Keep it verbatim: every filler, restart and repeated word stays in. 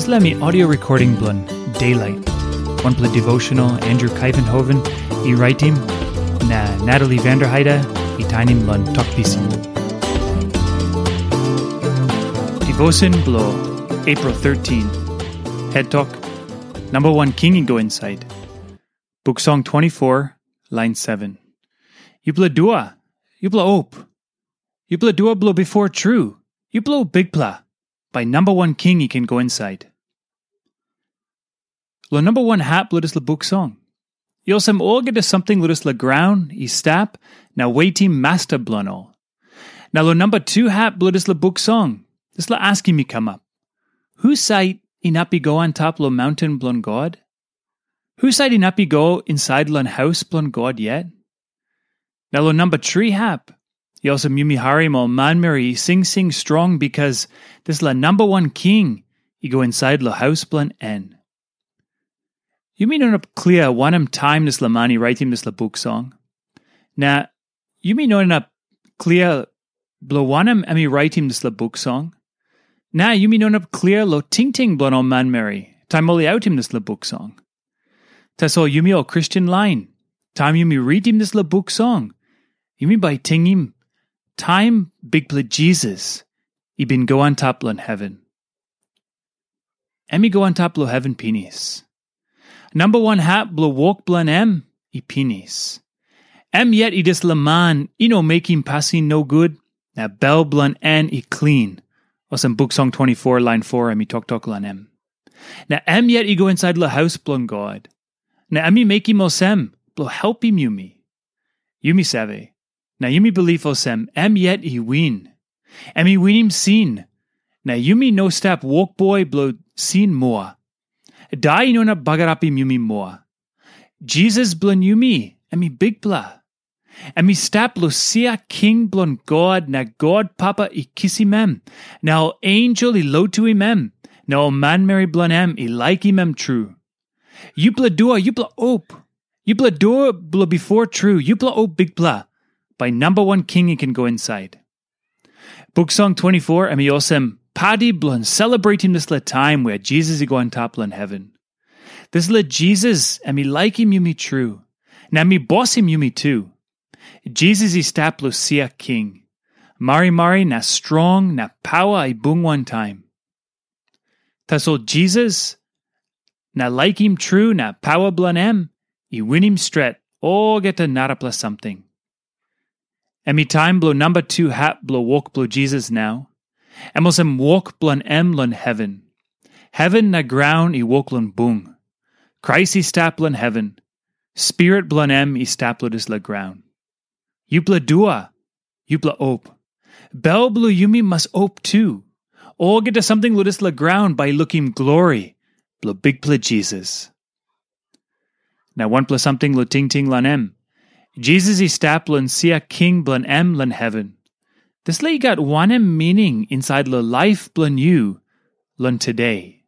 Dispela mi audio recording bilong Daylight, wanpela devotional Andrew Kaivenhoven i raitim, na Natalie Vanderheide i tainim long Tok Pisin. Devotion bilong April thirteen. Head Talk, Number One King i go inside. Book Song twenty-four, line seven. Yupela dua, yupela op. Yupela dua bilong bifor tru, yupela op bikpela, bai Number One King i ken go inside. Long number one hap bilong dispela buk song, i olsem olgeta samting long dispela graun i stap na wetim masta bilong ol. Na long number two hap bilong dispela buk song, dispela askim i kamap. Husat inap i go antap long maunten bilong God? Husat inap i go insait long haus bilong God yet? Na long namba tri hap, i olsem yumi harim ol manmeri i singsing strong bikas dispela namba wan king i go insait long haus bilong en. Yumi no inap klia wanem taim dispela man i raitim dispela buk song. Na yumi no inap klia bilong wanem em i raitim dispela buk song. Na yumi no inap klia long tingting bilong ol manmeri taim ol i autim dispela buk song. Tasol yumi ol Kristen lain, taim yumi ritim dispela buk song, yumi bai tingim taim Bikpela Jisas i bin go antap long heven. Em i go antap long heven pinis. Namba wan hap bilong wok bilong em i pinis. Em yet i dispela man i no mekim pasin nogut, na bel bilong en i klin, olsem Buk Song twenty-four lain four em i toktok long em. Na em yet i go insait long haus bilong God. Na em i mekim olsem bilong helpim yumi. Yumi save, na yumi bilip olsem em yet i win. Em i winim sin, na yumi no stap wokboi bilong sin moa. Dai i no inap bagarapim yumi moa. Jisas bilong yumi, em i bikpela. Em i stap long sia king bilong God, na God Papa i kisim em, na ol ensel i lotuim em, na ol manmeri bilong em i laikim em tru. Yupela dua, yupela op. Yupela dua bilong bifor tru, yupela op bikpela, bai namba wan king i ken go insait. Buk Song twenty-four em i olsem padi bilong selebretim dispela taim wea Jisas i go antap long heven. Dispela Jisas em i laikim yumi tru, na em i bosim yumi tu. Jisas i stap long sia king. Marimari na strong na paua i bung wantaim. Tasol Jisas na laikim tru na paua bilong em i winim stret olgeta narapela samting. Em i taim bilong namba tu hap bilong wok bilong Jisas nau. Em olsem wok bilong em long heven. Heven na graun i wok long bung. Krais i stap long heven. Spirit bilong em i stap long dispela graun. Yupela dua, yupela op. Bel bilong yumi mas op tu. Olgeta samting long dispela graun bai i lukim glori bilong Bikpela Jisas. Na wanpela samting long tingting long em. Jisas i stap long sia king bilong em long heven. Dispela i gat wanem mining insait long laip bilong yu long tude?